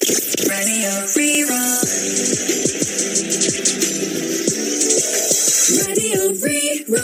Radio Rí-Rá. Radio Rí-Rá.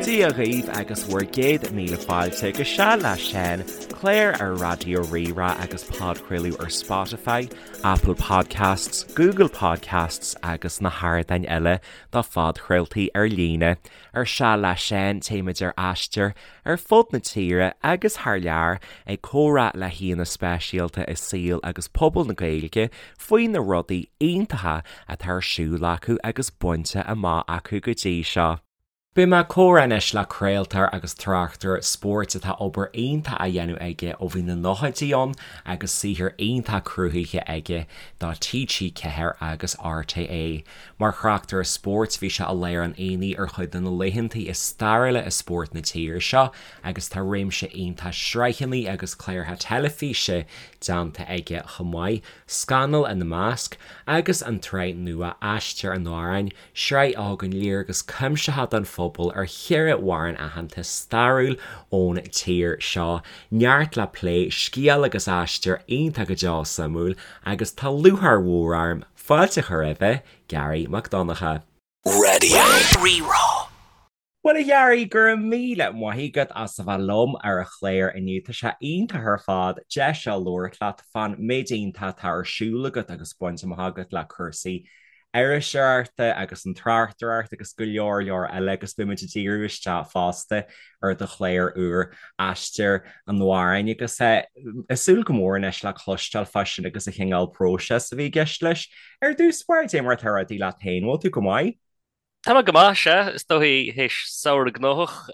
Dia dhaoibh agus bhur gcéad míle fáilte go Seal le Seán, clár ar Raidió Rí-Rá agus podchraoladh ar Spotify, Apple Podcasts, Google Podcasts agus na hardáin eile do phodchraoltaí ar líne. Ar Seal le Seán téimid ar aistear ar fud na tíre agus thar lear ag comhrá le haíonna speisialta i saol agus pobal na Gaeilge faoi na rudaí iontacha atá ar siúl acu agus bainte amach acu go dtí seo. Beidh mé ag comhrá anois le craoltóir agus tráchtaire spóirt atá obair iontach á dhéanamh aige ó bhí na nóchaidí ann agus saothar iontach cruthaithe aige do TG4 agus RTÉ. Mar thráchtaire spóirt bhí sé i lár an aonaigh ar chuid de na laethantaí is stairiúla i spórt na tíre seo agus tá réimse iontach sraitheanna agus cláracha teilifíse déanta aige chomh maith, Scannal ina measc, agus an tsraith nua Aistear an Amhráin, Sraith a thugann léargas cuimsitheach don phobal ar cheithre amhrán aitheanta stairiúil ón tír seo. Neart le plé, scéal agus aistear iontach go deo suimiúil agus tá lúcháir mhór orm fáilte a chur roimhe, Garry Mac Donncha. Radio Rí-Rá. Bhuel a Gharry, go raibh míle maith agat as a bheith liom ar an chlár inniu. Tá sé iontach ar fad deis seo labhairt leat fán méid iontach atá ar siúl agat agus bainte amach agat le cúrsaí iriseoireachta agus an tráchtaireacht agus go leor leor eile agus beidh muid ag díriú isteach fosta ar do chlár úr Aistear an Amhráin agus ag súil go mór anois le cloisteáil fá sin agus an chineál próiseas a bhí i gceist leis. Ar dtús báire, cad é mar atá rudaí leat féin, bhfuil tú go maith? Tá mé go maith, sea. Is dóichí théis samhradh gnóthach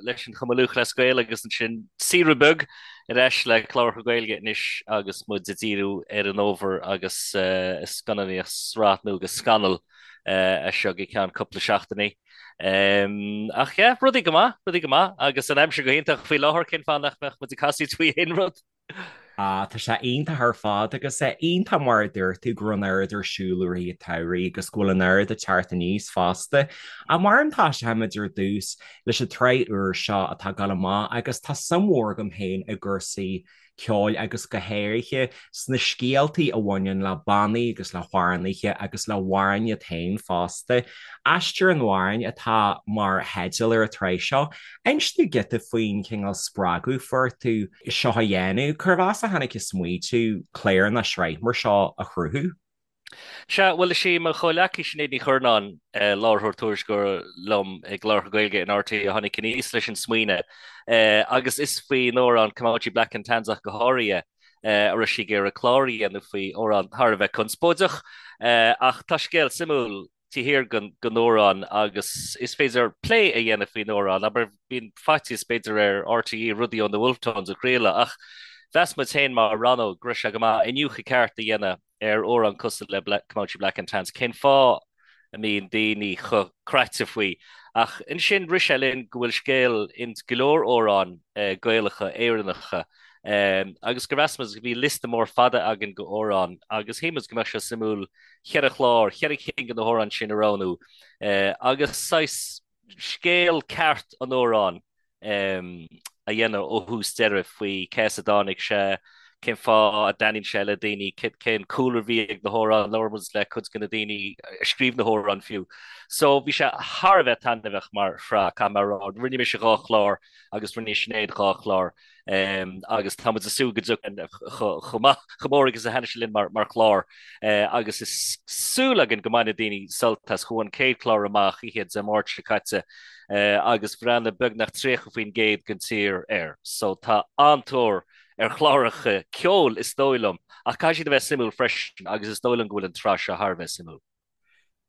leis an Chumann Lúthchleas Gael agus ansin saoire beag ar ais le cláracha Gaeilge anois agus muid ag díriú ar an fhómhar agus scannánaíocht sraith nua de Scannal as seo go ceann cúpla seachtainí. Ach yeah, rudaí go maith, rudaí go maith agus an aimsir go hiontach faoi láthair, cén fáth nach mbeadh muid ag casaoid faoi aon rud? Ah, tá sé iontach ar fad agus é iontach mar a dúirt tú go raibh an oiread ar siúl i rith an tsamhraidh agus go bhfuil an oiread ag teacht aníos fosta. Ach mar tosóimid ar dtús leis an tsraith úr seo atá ag dul amach agus tá suim mhór agam féin i gcúrsaí ceoil agus go háirithe sna scéaltaí a bhaineann le bannaí agus le hamhránaithe agus le hamhráin iad féin fosta. Aistear an Amhráin atá mar theideal ar an tsraith seo. Inis dúinn giota faoin chineál spreagadh fuair tú seo a dhéanamh. Cérbh as a tháinig an smaoitiú clár nó sraith mar seo a chruthú? Sea, bhuel, is í mo chomhleacaí Sinéad Ní Churnáin, láithreoir tuairisceoir liom i gcláracha Gaeilge in RTÉ a tháinig aníos leis an smaoineamh agus is faoin amhrán Comanche Black and Tans ach go háirithe a raibh sí ag iarraidh clár a dhéanamh faoi, amhrán thar a bheith conspóideach ach tá scéal suimiúil taobh thiar den amhrán agus is féidir plé a dhéanamh faoin amhrán. Abair, bíonn faitíos b'fhéidir ar RTÉ rudaí ó na Wolfe Tones a chraoladh ach mheas muid féin mar rannóg go raibh sé go maith iniúchadh ceart a dhéanamh ar amhrán cosúil le Comanche Black and Tans. Cén fáth a mbíonn daoine chomh craite faoi? Ach ansin rith sé linn go bhfuil scéal ins go leor amhráin Gaelacha, Éireannacha agus gur mheas muid go bhí liosta mór fada againn de amhráin agus shíl muid go mbeadh sé suimiúil cheithre chlár, cheithre cinn de na hamhráin sin a roghnú agus saghas scéal ceart an amhráin a dhéanamh ó thús deireadh faoi cé as a dtáinig sé, cén fáth a dtaitníonn sé le daoine, cén cúlra a bhí ag na hamhráin, labhair muid le cuid de na daoine a scríobh na hamhráin fiú. So bhí sé thar a bheith taitneamhach mar shraith, caithfidh mé a rá. Rinne mise dhá chlár agus rinne Sinéad dhá chlár. Agus tá muid ag súil go dtiocfaidh chomh maith, chomh mór agus a thaitnigh sé linn mar chlár. Agus is súil againn go mbainfidh daoine sult as. Chuaigh an chéad chlár amach oíche Dé Máirt seo caite agus bhreathnaigh beagnach 30% den tír air. So tá an-tóir ar chláracha ceoil is dóigh liom, ach caithfidh siad a bheith suimiúil freisin agus is dóigh liom go bhfuil an tsraith seo thar a bheith suimiúil.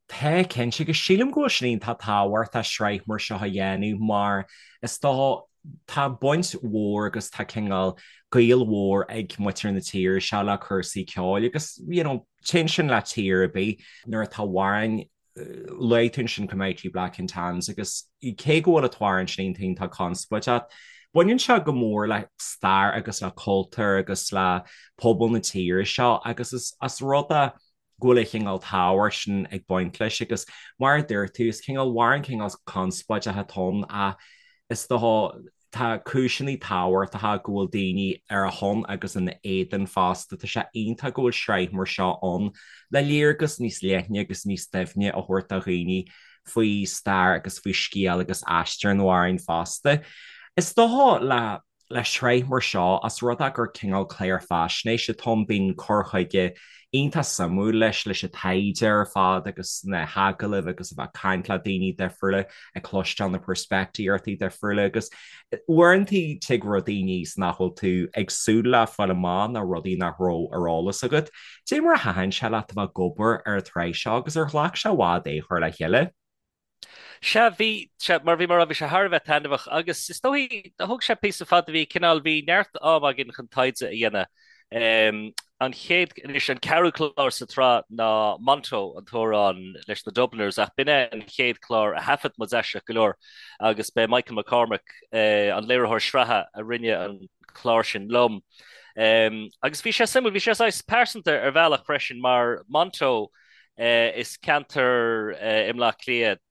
Tá, cinnte, agus sílim go bhfuil sin iontach tábhachtach sraith mar seo a dhéanamh mar is dócha tá baint mhór agus tá cineál gaol mhór ag muintir na tíre seo le cúrsaí ceoil agus you know téann sin le tír ar bith nuair atá amhráin luaigh tú ansin Comanche Black and Tans agus cé go bhfuil an t-amhrán sin iontach iontach conspóideach baineann sé go mór le stair agus le cultúr agus le pobal na tíre seo agus is as rud a. go bhfuil an chineál tábhacht sin ag baint leis agus mar a dúirt tú, is cineál amhrán cineál conspóideach atá ann ach is dócha tá cúiseanna tábhachtacha go bhfuil daoine ar a shon agus ina éadan fosta. Tá sé iontach go bhfuil sraith mar seo ann le léargas níos leithne agus níos doimhne a thabhairt do dhaoine faoi stair agus faoi scéal agus aistear an amhráin fosta. Is dócha le Le sraith mar seo, os rud é gur cineál clár faisnéise atá ann, bíonn cur chuige iontach suimiúil leis, leis an taighde ar fad agus na hagallaimh agus a bheith ag caint le daoine difriúla, ag cloisteáil na peirspictíochtaí difriúla agus uaireanta tig rudaí aníos nach bhfuil tú ag súil le fáil amach nó rudaí nach raibh ar eolas agat. Cad é mar a thaitin sé leat a bheith ag obair ar an tsraith seo agus ar ghlac sé i bhfad é a chur le chéile? Sea, bhí, sea, mar bhí mé a rá, bhí sé thar a bheith taitneamhach agus is dóigh, thóg sé píosa fada, bhí cineál, bhí neart am againn chun taighde a dhéanamh. An chéad, anois an ceathrú clár sa tsraith ná Monto, an t-amhrán leis na Dubliners, ach b'in é an chéad chlár a thaifead muid aisteach go leor agus b'é Michael McCormack, an léiritheoir sraithe, a rinne an clár sin liom. Agus bhí sé suimiúil, bhí sé saghas pearsanta ar bhealach freisin mar Monto, Is ceantar i mBleá Cliath,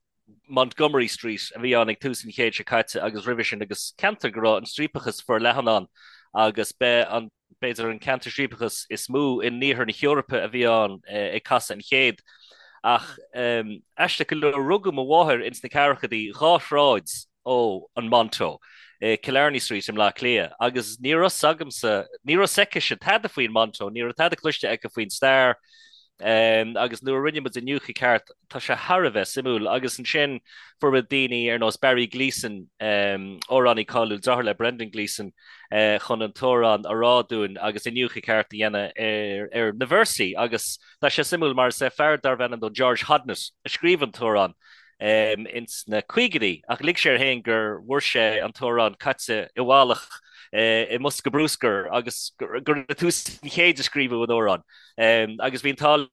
Montgomery Street, a bhí ann ag tús an chéid seo caite agus roimhe sin agus ceantar go raibh an striapachas forleathan ann agus b'é an, b'fhéidir, an ceantar striapachas is mó in iarthar na hEorpa a bhí ann ag casadh an chéid. Ach aisteach go leor, rugadh mo mháthair ins na ceathrachaidí, dhá shráid ó an Monto, i Killarney Street i mBleá Cliath agus ní raibh 's agamsa, ní raibh 's aicise tada faoin Monto, ní raibh tada cloiste aici faoin stair agus nuair a rinne muid iniúchadh ceart, tá sé thar a bheith suimiúil agus ansin fuair muid daoine ar nós Barry Gleeson, amhránaí cáiliúil, deartháir le Brendan Gleeson, chun an t-amhrán a rá dúinn agus iniúchadh ceart a dhéanamh ar na véarsaí agus tá sé suimiúil mar is é fear darbh ainm dó George Hodnett a scríobh an t-amhrán. ins na caogaidí, ach lig sé air féin gur bhfuair sé an t-amhrán caite i bhfalach i mbosca bruscair agus gur i dtús an chéid a scríobhadh an amhrán. Agus bhí an t-ádh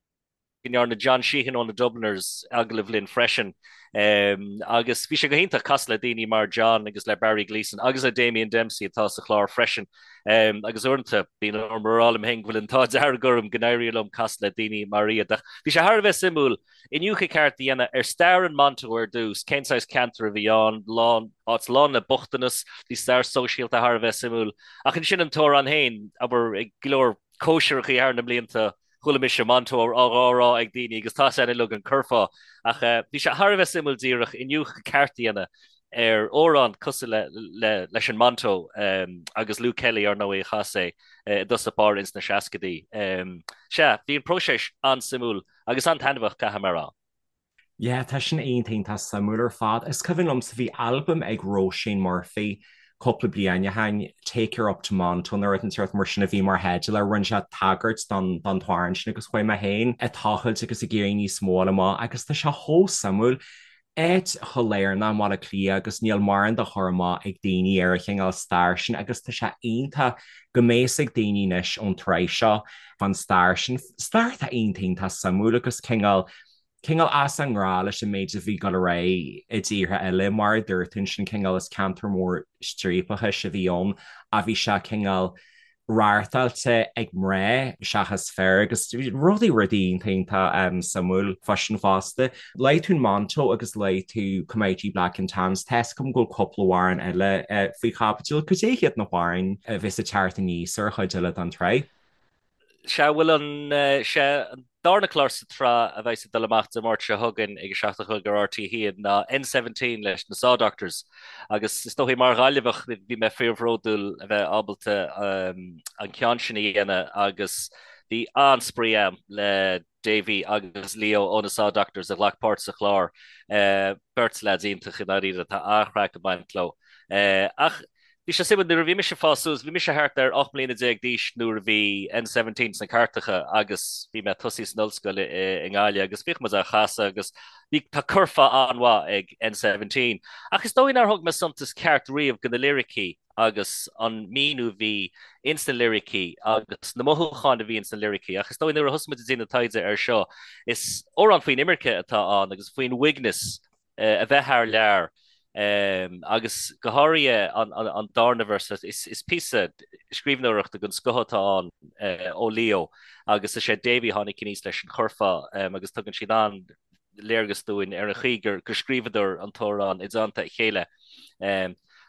go ndearna John Sheahan ó na Dubliners agallamh linn freisin. Agus bhí sé go hiontach casadh le daoine mar John agus le Barry Gleeson agus le Damien Dempsey atá sa chlár freisin. Agus uaireanta bíonn orm a rá liom féin go bhfuil an t-ádh dearg orm go n-éiríonn liom casadh le daoine mar iad. Ach bhí sé thar a bheith suimiúil Iniúchadh ceart a dhéanamh ar stair an Monto ar dtús, cén saghas ceantar a bhí ann, lán, áit lán le bochtanas, bhí stair sóisialta thar a bheith suimiúil. Ach ansin an t-amhrán féin, abair, ag go leor cóisireachaí thar na mblianta, chuala mise Monto á rá ag daoine agus tá a fhios againn uilig an curfá. Ach bhí sé thar a bheith suimiúil díreach iniúchadh ceart a dhéanamh ar amhrán cosúil le, le, leis an Monto agus Luke Kelly, ar ndóigh, a chas é i dtosach báire ins na seascaidí. Sea, bhí an próiseas an-suimiúil. Agus an-taitneamhach, caithfidh mé a rá. Yeah, tá sin iontach iontach suimiúil ar fad. Is cuimhin liomsa bhí albam ag Róisín Murphy cúpla bliain ó shin, Take Her Up to Monto nó rud inteacht mar sin a bhí mar theideal air. Rinne sé tagairt don don t-amhrán sin agus chuaigh mé féin ag tochailt agus ag iarraidh níos mó a fháil amach agus tá sé chomh suimiúil. Áit chomh lárnach i mBaile Átha Cliath agus níl mórán de chur amach ag daoine ar an chineál stair sin agus tá sé iontach go mbeidh fhios ag daoine anois ón tsraith seo fán stair sin, stair atá iontach iontach suimiúil agus cineál, cineál as an ngnáth leis an méid a bhí ag dul ar aghaidh i dtíortha eile. Mar a dúirt tú ansin cineál is ceantar mór striapachais a bhí ann ach bhí sé cineál reáchtáilte ag mná seachas fir agus rudaí rudaí iontach iontach suimiúil fá sin fosta. Luaigh tú Monto agus luaigh tú Comanche Black and Tans. Tá fhios agam go bhfuil cúpla amhrán eile faoi chaibidil. Cad é hiad na hamhráin a bheas ag teacht aníos ar an chuid eile den tsraith? Sea, bhuel an, sea, an darna clár sa tsraith a bheas ag dul amach Dé Máirt seo chugainn ag a 7 a chlog ar RTÉ 1 ná N17 leis na Saw Doctors agus is dóigh mar Ghaillimheach bhí mé fíorbhródúil a bheith ábalta an ceann sin a dhéanamh agus bhí an-spraoi agam le Davy agus Leo ó na Saw Doctors a ghlac páirt sa chlár. Beirt leaids iontach i ndáiríre, tá an-chraic ag baint leo. Ach bhí sé suimiúil, nuair a bhí mise ag fás suas, bhí mise thart ar 18 mbliana d'aois nuair a bhí N17 sna cairteacha agus bhí mé ag tosaí san ollscoil i nGaillimh agus bhíodh muid á chasadh agus bhí, tá curfá an-mhaith ag N17. Ach is dóigh nár thug mé suntas ceart riamh do na liricí agus an míniú a bhí ins na liricí agus na mothúcháin a bhí ins na liricí. Ach is dóigh nuair a thosaigh muid ag déanamh taighde air seo, is amhrán faoin imirce atá ann agus faoin uaigneas a bheith thar lear. Agus go háirithe an darna véarsa, is píosa scríbhneoireachta den scoth atá ann ó Leo agus is é Davy a tháinig aníos leis an churfá agus tugann siad an-léargas dúinn ar an chaoi gur scríobhadar an t-amhrán i dteannta a chéile.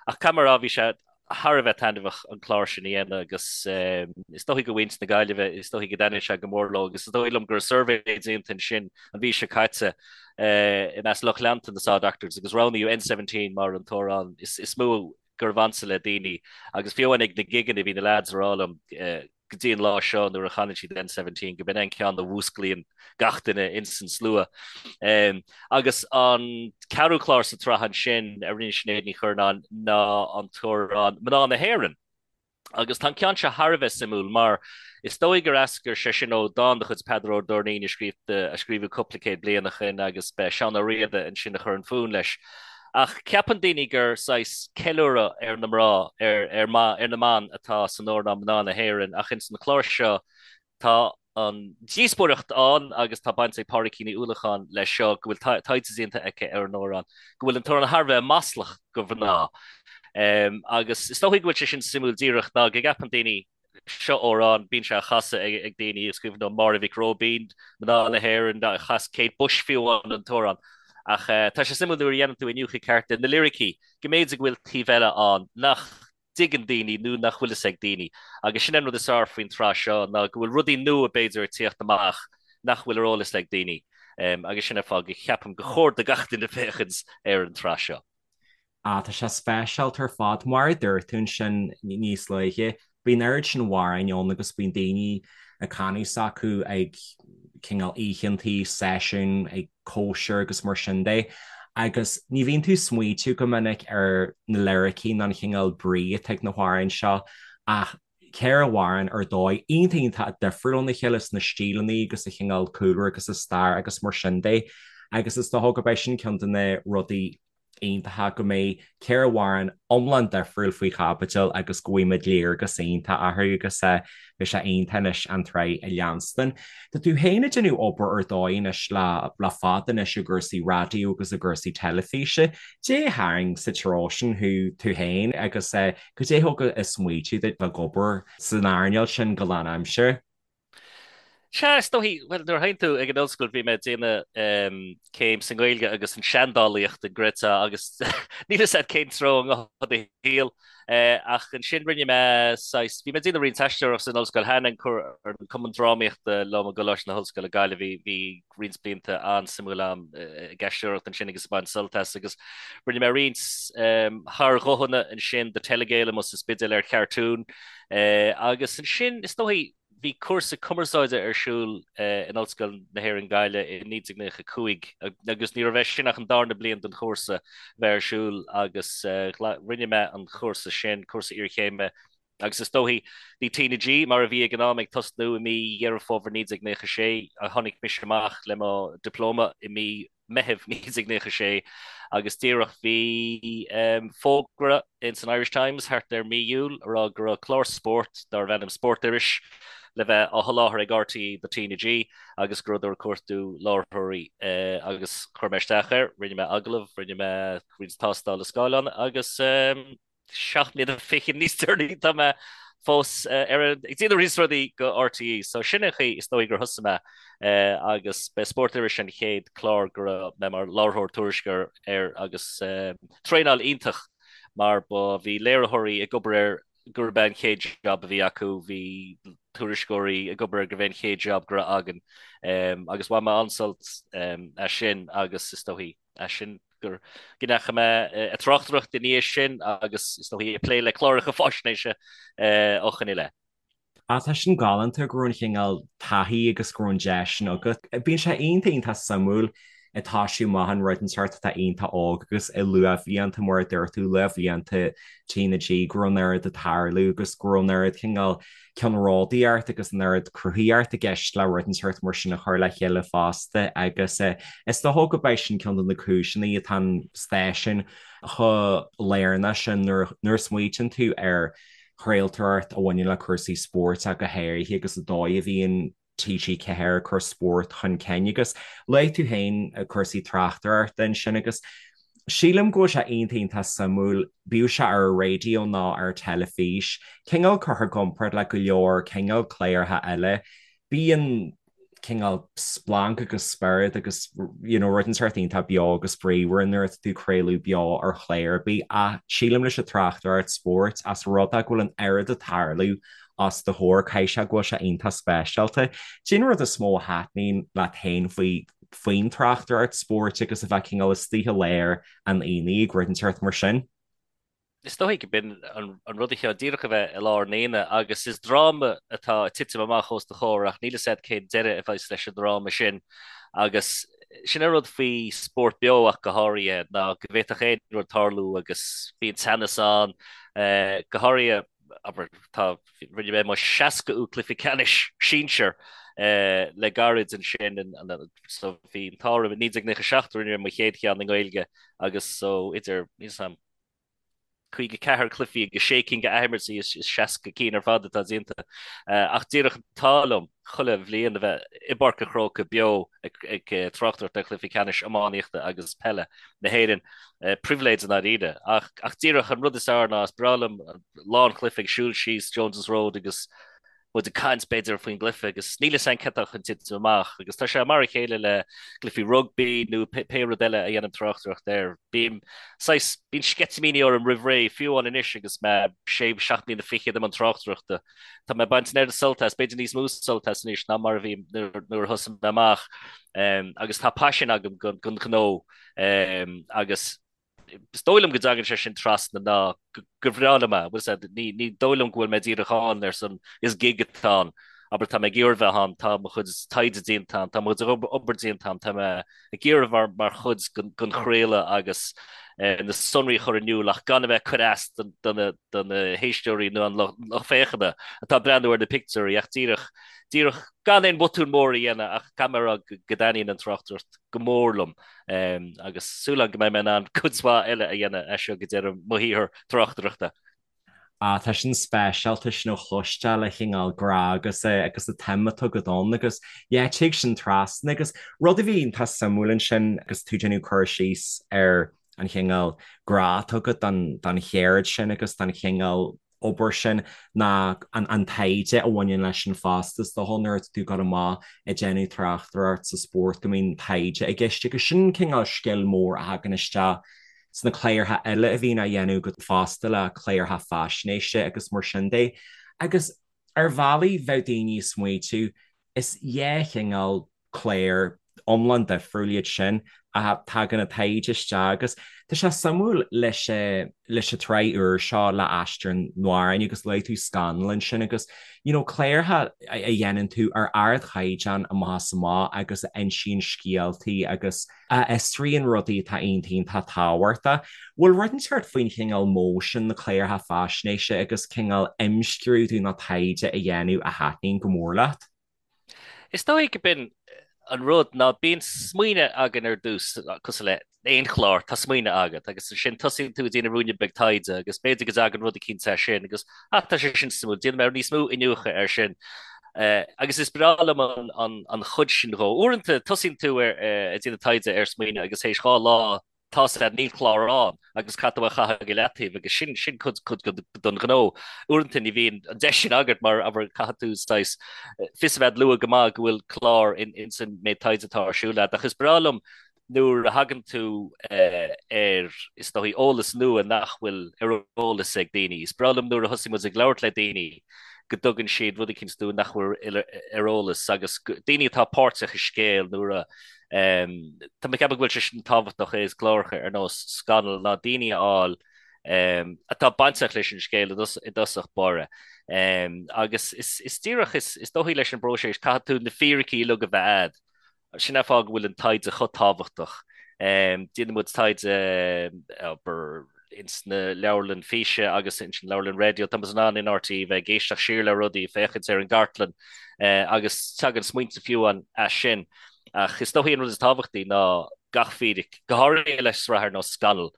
Ach caithfidh mé a rá, bhí sé thar a bheith taitneamhach an clár sin a dhéanamh agus is dóigh go mhuintir na Gaillimhe, is dóigh go dtaitnigh sé go mór leo agus is dóigh liom go raibh suirbhé déanta ansin an mhí seo caite i measc lucht leanta na Saw Doctors agus roghnaíodh N17 mar an t-amhrán is mó gurbh ansa le daoine agus fiú amháin ag na gigeanna bhí na leaids ag rá liom go dtí an lá seo nuair a chanann siad N17 go b'in an ceann a mhúsclaíonn gach duine ins an slua. Agus an ceathrú clár sa tsraith ansin a rinne Sinéad Ní Churnáin ná an t-amhrán Mná na hÉireann. Agus tá an ceann seo thar a bheith suimiúil mar is dóigh gur eascair sé sin ó dán de chuid Peadar Ó Doirnín a scríobhadh cúpla céad bliain ó shin agus b'é Seán Ó Riada ansin a chuir an fonn leis. Ach ceapann daoine gur saghas ceiliúradh ar na mná, ar ar na mban atá san amhrán Mná na hÉireann ach ins an chlár seo tá an díospóireacht ann agus tá baint ag Pádraigín Ní Uallacháin leis seo go bhfuil taighde déanta aici ar an amhrán, go bhfuil an t-amhrán thar a bheith maslach go mhná. Agus is dóigh go bhfuil sé sin suimiúil díreach ná go gceapann daoine Seo amhrán, bíonn sé á chasadh ag daoine, is cuimhin liom Máire Mhic Róibín, Mná na hÉireann, chas Kate Bush fiú amháin an t-amhrán. Ach tá sé suimiúil nuair a dhéanann tú iniúchadh ceart ar na liricí, go mb'fhéidir go bhfuil taobh eile ann nach dtuigeann daoine nó nach bhfuil fhios ag daoine. Agus sin an rud is fearr faoin tsraith seo ná go bhfuil rudaí nua b'fhéidir ag tíocht amach nach bhfuil ar eolas ag daoine. Agus sin an fáth go cheapaim gur chóir do gach duine féachaint ar an tsraith seo. Ah, tá sé speisialta ar fad. Mar a dúirt tú ansin níos luaithe, bíonn an oiread sin amhráin ann agus bíonn daoine ag canadh s'acu ag cineál oícheantaí, seisiúin, ag cóisir agus mar sin de. Agus ní bhíonn tú ag smaoitiú go minic ar na liricí ná an chineál brí atá ag na hamhráin seo ach 4 amhrán ar dóigh iontach iontach difriúil óna chéile sna stíleanna agus sa chineál cúlra agus sa stair agus mar sin de. Agus is dócha gurb é sin ceann de na rudaí iontacha go mbeidh 4 amhrán iomlán difriúil faoi chaibidil agus go bhfaighimid léargas iontach orthu agus beidh sé iontach anois an tsraith a leanstan. Tá tú féin ag déanamh obair ar dóigh anois le le fada anois i gcúrsaí raidió agus i gcúrsaí teilifíse. Cad é a tharraing sa treo sin thú tú féin agus cad é a thug an smaoitiú duit bheith ag obair san earnáil sin go lánaimseartha? Sea, is dóichí, bhuel, nuair a théann tú ag an ollscoil bhí mé ag déanamh céim sa nGaeilge agus an seandálaíocht an gcreidfeá agus níl fhios agat cén treo a ngabhfaidh do shaol. Ach ansin rinne mé saghas, bhí mé ag déanamh roinnt aisteoireacht san ollscoil cheana, an Cumann Drámaíochta liom i gColáiste na hOllscoile Gaillimh, bhí, bhí roinnt blianta an-suimiúil agam ag aisteoireacht ansin agus ag baint sult as agus rinne mé roinnt thar-ghuthanna ansin do Telegael amuigh sa Spidéal ar chartún agus ansin is dóichí bhí cúrsa cumarsáide ar siúl in Ollscoil na hÉireann Gaillimh i 1995 agus ní raibh é sin ach an darna bliain den chúrsa bheith ar siúl agus rinne mé an chúrsa sin, cúrsa iarchéime Agus is dóichí, bhí TnaG, mar a bhí ag an am, ag tosnú i mí Dheireadh Fómhair 1996. Tháinig mise amach le mo dioplóma i mí Meithimh 1996 agus díreach bhí fógra ins an Irish Times thart ar mí Iúil a rá go raibh clár spóirt darbh ainm Spórt Iris le bheith á sholáthar ag RTÉ do TnaG agus go rabhadar ag cuartú láithreoirí agus chuir mé isteach air, rinne mé agallamh, rinne mé roinnt tástála scáileáin agus. 7 mbliana fichead níos deireanaí tá mé fós ar ag déanamh roinnt rudaí go RTÉ. So sin an chaoi is dóigh gur thosaigh mé agus b'é Spórt Iris an chéad clár go raibh mé mar láithreoir tuairisceoir air agus traenáil iontach mar ba bhí léiritheoirí ag obair air gurb é an chéad job a bhí acu, bhí tuairisceoirí ag obair air gurbh é an chéad job go raibh againn agus bhain mé an-sult as sin agus is dóigh as sin go ndeachaigh mé ag tráchtaireacht i ndiaidh sin agus is dóigh ag plé le cláracha faisnéise ó shin i leith. Ah, tá sin galánta go raibh an chineál taithí agus go raibh an deis sin agat. Bíonn sé iontach iontach suimiúil ag toisiú amach in rud inteacht atá iontach óg agus i luathbhlianta mar a dúirt tú, luathbhlianta TnaG go raibh an oiread ag tarlú agus go raibh an oiread cineál ceannródaíocht agus an oiread cruthaíocht i gceist le rud inteacht mar sin a chur le chéile fosta agus is dócha go b'é sin ceann de na cúiseanna atá an stáisiún chomh lárnach sin nuair a smaoitíonn tú ar chraoltóireacht a bhaineann le cúrsaí spóirt ach go háirithe agus an dóigh a bhíonn TG4 ag cur spórt chun cinn agus luaigh tú féin cúrsaí tráchtaireachta ansin agus. Sílim go bhfuil sé iontach iontach suimiúil, bíodh sé ar an raidió nó ar an teilifís, cineál curtha i gcomparáid le go leor cineál cláracha eile. Bíonn cineál splanc agus spiorad agus you know rud inteacht iontach beo agus bríomhar nuair atá tú ag craoladh beo ar chlár ar bith ach sílim leis an tráchtaireacht spóirt as rud é go bhfuil an oiread ag tarlú os do chomhair caithfidh sé go bhfuil sé iontach speisialta. Cén rud is mó a thaitníonn leat féin faoi faoin tráchtaireacht spóirt agus a bheith cineál istigh i lár an aonaigh ag rud inteacht mar sin? Is dóigh go b'in an rud a cheann díreach a bheith i lár an aonaigh agus is dráma atá ag titim amach os do chomhair ach níl fhios agat cén deireadh a bheas leis an dráma sin agus sin an rud faoi spórt beo ach go háirithe ná go bhféadfadh aon rud tarlú agus bíonn teannas ann go háirithe abair tá rinne mé mo 60ú cluiche ceannais sinsir le gairid ansin so bhí an t-ádh orm i 1997 rinne mé mo chéad cheann i nGaeilge agus so idir níl fhios a'm 54 cluichí agus sé cinn d'athimirtí is 60 cinn ar fad atá déanta. Ach díreach an t-ádh liom chuile bhliain a bheith i bPáirc an Chrócaigh beo ag tráchtaireacht ar chluichí ceannais iománaíochta agus peile na hÉireann. Pribhléid i ndáiríre. Ach díreach an rud is fearr ná is breá liom lá an chluiche ag siúl síos Jones's Road agus muid ag caint, b'fhéidir, faoin gcluiche agus níl fhios a'inn cad tá chun titim amach agus tá sé mar a chéile le cluichí rugbaí nó pé rud eile a dhéanaim tráchtaireacht air. Bím saghas, bíonn sceitimíní orm roimh ré, fiú amháin anois agus mé sé, seacht mbliana fichead i mbun tráchtaireachta. Tá mé ag baint an oiread sult as, b'fhéidir níos mó sult as anois ná mar a bhí nuair a thosaigh mé amach agus tá paisean agam don ghnó agus Is dóigh liom go dtagann sé sin trasna ná gur bhreá liom é, bhfuil fhios a'd, ní, ní dóigh liom go bhfuil mé díreach ann ar son is gig atá ann, abair tá mé ag iarraidh bheith ann, tá mo chuid taighde déanta a'm, tá mo chuid obair déanta a'm, tá mé ag iarraidh mar, mar chuid den, den chraoladh agus na sonraí a chur in iúl ach gan a bheith ag cur as do, do na, do na héisteoirí nó an lucht féachana atá ag breathnú ar na pictiúirí ach díreach, díreach gan aon bhotún mór a dhéanamh ach caithfidh mé a rá go, go dtaitníonn an tráchtaireacht go mór liom. Agus súil agam go mbeidh mé in ann cuid mhaith eile a dhéanamh as seo go deireadh mo shaothar tráchtaireachta. Ah, tá sin speisialta sin a chloisteáil an cineál grá agus agus an tsuim atá agat ann agus yeah tig sin trasna agus rud a bhí iontach suimiúil ansin agus tú ag déanamh cur síos ar an chineál grá atá agat don don cheird sin agus don chineál obair sin ná an taighde a bhaineann leis an phost. Is dócha nuair atá tú ag dul amach ag déanamh tráchtaireacht sa spórt go mbíonn taighde i gceist agus sin cineál scil mór a thagann isteach sna cláracha eile a bhíonn á dhéanamh agat fosta le cláracha faisnéise agus mar sin de. Agus ar bhealaí bheadh daoine ag smaoitiú is dhá chineál clár iomlán difriúil iad sin ach tagann an taighde isteach agus tá sé suimiúil leis leis an tsraith úr seo le Aistear an Amhráin agus luaigh tú Scannal ansin agus you know cláracha a dhéanann tú ar ardchaighdeán amach is amach agus a insíonn scéaltaí agus a fhiosraíonn rudaí atá iontach iontach tábhachtach. Bhfuil rud inteacht faoin chineál modh sin na cláracha faisnéise agus cineál imscrúdú nó taighde a dhéanamh a thaitníonn go mór leat? Is dóigh go b'in an rud ná bíonn smaoineamh againn ar dtús, cosúil le aon chlár, tá smaoineamh agat agus ansin tosaíonn tú ag déanamh ruainne beag taighde agus b'fhéidir go dtagann rud eicínt as sin agus ah tá sé sin suimiúil, déanfaidh mé níos mó iniúchadh air sin. Agus is breá liom an chuid sin dhó. Uaireanta tosaíonn tú ar ag déanamh taighde ar smaoineamh agus théis 2 lá tá's agat níl clár ann agus caithfidh tú é a chaitheamh go leataobh agus sin sin cuid cuid don ghnó. Uaireanta ní bhíonn an deis sin agat mar abair caithfidh tú saghas fios a bheith luath go maith go bhfuil clár in ins an méid taighde atá ar siúl agat ach is breá liom nuair a thagann tú ar is dóigh eolas nua nach bhfuil ar eolas ag daoine. Is breá liom nuair a thosaigh muid ag labhairt le daoine go dtugann siad rud eicínt dúinn nach bhfuil ar eolas agus daoine atá páirteach i scéal nuair a Tá mé ag ceapadh go bhfuil sé sin tábhachtach i gcláracha ar nós Scannal ná daoine a fháil atá bainteach leis an scéal i dtosach báire. Agus is díreach is dóichí leis an bpróiseas caithfidh tú na fíricí uilig a bheith a'd. Sin an fáth go bhfuil an taighde chomh tábhachtach. Déanann muid taighde abair ins na leabharlann físe agus ins an leabharlann raidió. Tá muid in ann in RTÉ bheith ag éisteacht siar le rudaí, féachaint ar an gcartlann agus tagann smaointe fiú amháin as sin. Ach is dóichí an rud is tábhachtaí ná gach fíric, go háirithe le sraith ar nós Scannal,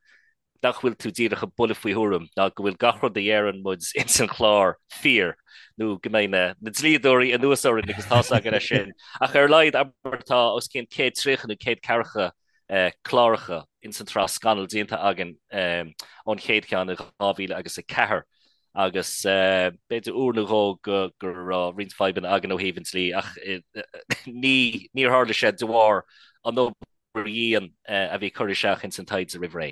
nach bhfuil tú díreach ag bualadh faoi thuairim ná go bhfuil gach rud a dheireann muid ins an chlár fíor nó go mbeidh na dlíodóirí anuas orainn agus tá's againn é sin. Ach ar a laghad, abair, tá os cionn 130 nó 140 cláracha. ins an tsraith Scannal déanta againn ón chéad cheann i 2000 agus 4 agus b'fhéidir uair nó dhó go go raibh roinnt fadhbanna againn ó thaobh an dlí ach ní níor tharla sé de bharr an obair dhian a bhí curtha isteach ins an taighde roimh ré.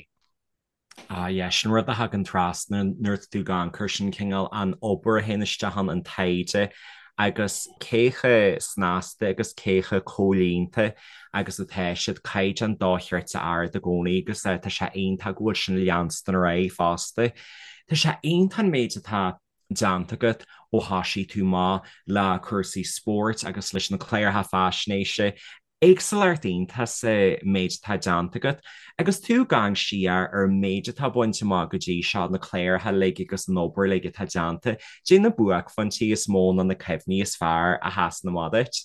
Ah yeah, sin rud a thagann trasna nuair atá tú ag amharc air sin cineál an obair a théann isteach ann, an taighde agus cé chomh snasta agus cé chomh comhlíonta agus atá siad, caighdeán dochreidte ard i gcónaí agus tá sé iontach go bhfuil sin leanstan ar aghaidh fosta. Tá sé iontach an méid atá déanta agat ó thoisigh tú amach le cúrsaí spóirt agus leis na cláracha faisnéise Éagsúlacht iontach sa méid atá déanta agat agus tú ag amharc siar ar an méid atá bainte amach go dtí seo, na cláracha uilig agus an obair uilig atá déanta, caidé na buaicphointí is mó nó na cuimhní is fearr a sheasann amach duit?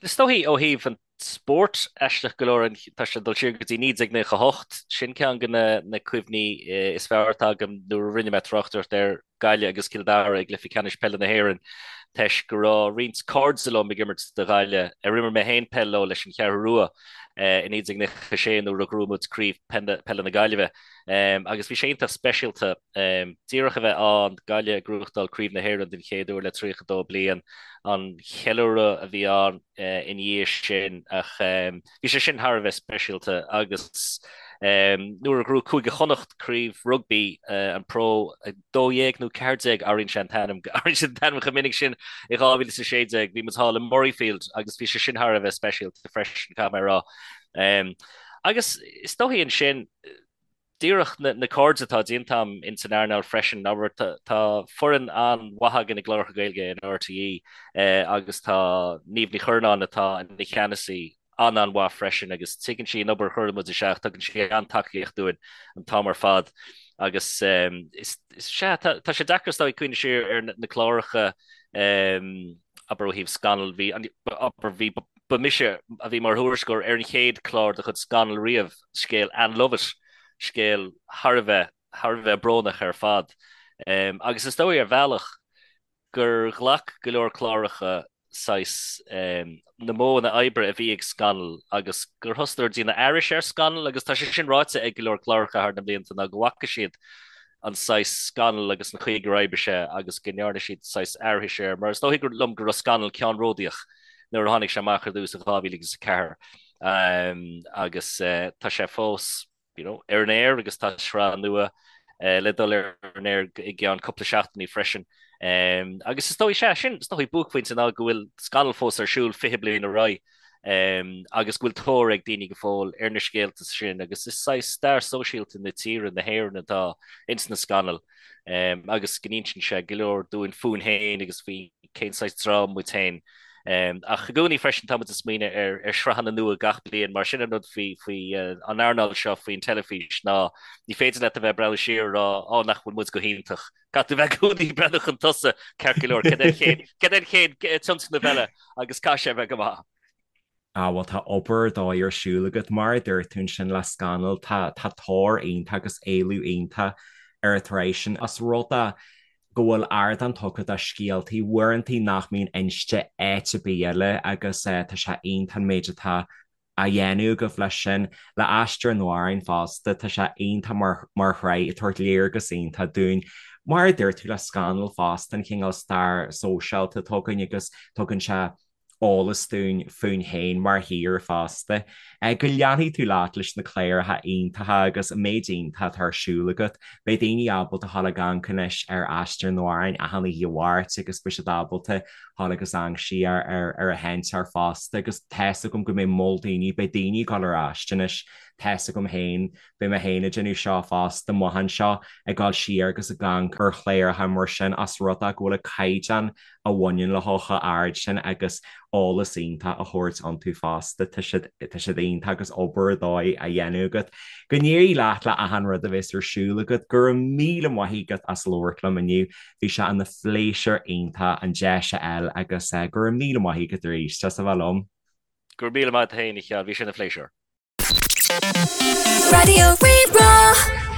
Is dóichí ó thaobh an spóirt, aisteach go leor, tá sé ag dul siar go dtí 1998, sin ceann de na cuimhní is fearr atá agam nuair a rinne mé tráchtaireacht ar Gaillimh agus Cill Dara i gcluiche ceannais peile na hÉireann toisc go raibh roinnt cairde liom ag imirt do Ghaillimh ar imir mé féin peil leo leis an Cheathrú Rua i 1996 nuair a ghnóthaigh muid craobh peile na Gaillimhe agus bhí sé iontach speisialta díreach a bheith ann, Gaillimh ag gnóthachtáil craobh na hÉireann den chéad uair le 32 bliain, an cheiliúradh a bhí ann ina dhiaidh sin ach bhí sé sin thar a bheith speisialta agus nuair a ghnóthaigh Cúige Chonnacht craobh rugbaí an Pro 12 nó 14 athraíonn sé an t-ainm athraíonn sé an t-ainm chomh minic sin i 2016 bhí muid thall i Murrayfield agus bhí sé sin thar a bheith speisialta freisin caithfidh mé a rá. Agus is dóichí ansin díreach na cairde atá déanta agam ins an earnáil freisin, abair, tá foireann an-mhaith againn i gcláracha Gaeilge in RTÉ agus tá Niamh Ní Churnáin atá ina cheannasaí an-an-mhaith freisin agus tuigeann sí an obair a chuireann muid isteach, tugann sí an-tacaíocht dúinn an t-am ar fad agus is sea, tá sé deacair is dóigh cuimhneamh siar ar na cláracha abair ó thaobh Scannal, bhí, abair, bhí, ba mise a bhí mar thuairisceoir ar an chéad chlár de chuid Scannal riamh, scéal Ann Lovett, scéal thar a bheith, thar a bheith brónach ar fad. Agus is dóigh ar bhealach gur ghlac go leor cláracha saghas na modhanna oibre a bhí ag Scannal agus gur thosaíodar ag déanamh aithris ar Scannal agus tá sé sin ráite ag go leor cláracha thar na blianta ná go bhfaca siad an saghas Scannal agus an chaoi gur oibrigh sé agus go ndearna siad saghas aithris air mar is dóigh liom go raibh Scannal ceannródaíoch nuair a tháinig sé amach ar dtús in 2004 agus tá sé fós you know, ar an aer agus tá sraith nua le dul ar an aer i gceann cúpla seachtainí freisin. Agus is dóigh, sea, sin is dóigh buaicphointe ná go bhfuil Scannal fós ar siúl 20 bliain ar aghaidh agus go bhfuil tóir ag daoine go fóill ar na scéalta sin agus is saghas stair sóisialta na tíre, na hÉireann atá ins na scannail agus go n-insíonn sé go leor dúinn fúinn féin agus faoi cén saghas dream muid féin. Ach i gcónaí freisin tá muid ag smaoineamh ar ar shraitheanna nua gach bliain mar sin an rud faoi faoi an earnáil seo faoin teilifís ná ní féidir leat a bheith ag breathnú siar ag rá á nach bhfuil muid go hiontach. Caithfidh tú bheith i gcónaí ag breathnú chun tosaigh ceart go leor cad é an chéad cad é an chéad tionscnamh eile agus caithfidh sé a bheith go maith. Ah bhuel tá obair ar dóigh ar siúl agat. Mar a dúirt tú ansin le Scannal tá tá tóir iontach agus éileamh iontach ar an tsraith sin. Os rud é go bhfuil ardán tugtha do scéaltaí uaireantaí nach mbíonn inste áit ar bith eile agus tá sé iontach an méid atá á dhéanamh agaibh leis sin. Le Aistear an Amhráin fosta, tá sé iontach mar mar shraith ag tabhairt léargas iontach dúinn. Mar a dúirt tú le Scannal fosta, an cineál stair sóisialta atá againn agus tugann sé eolas dúinn fúinn féin mar thír fosta. Go leanfaidh tú leat leis na cláracha iontacha agus an méid iontach atá ar siúl agat. Beidh daoine ábalta dhul ag amharc anois ar Aistear an Amhráin achan oíche Mháirt agus beidh siad ábalta dhul agus amharc siar ar ar an sheinnteoir fosta agus tá's agam go mbeidh moll daoine, beidh daoine ag dul ar ais anois, tá's agam féin, beidh mé féin ag déanamh seo fosta amach anseo, ag dul siar agus ag amharc ar chláracha mar sin os rud é go bhfuil an caighdeán a bhaineann leo chomh hard sin agus eolas iontach á thabhairt iontu fosta. Tá siad, tá siad iontach agus obair ar dóigh á dhéanamh agat. Go n-éirí leat le achan rud a bheas ar siúl agat. Go raibh míle maith agat as labhairt liom inniu. Bhí sé ina phléisiúr iontach an deis a fháil agus go raibh míle maith agat arís as a bheith liom. Go raibh míle maith agat féin, a Sheáin. Bhí sé ina phléisiúr. Raidió Rí-Rá.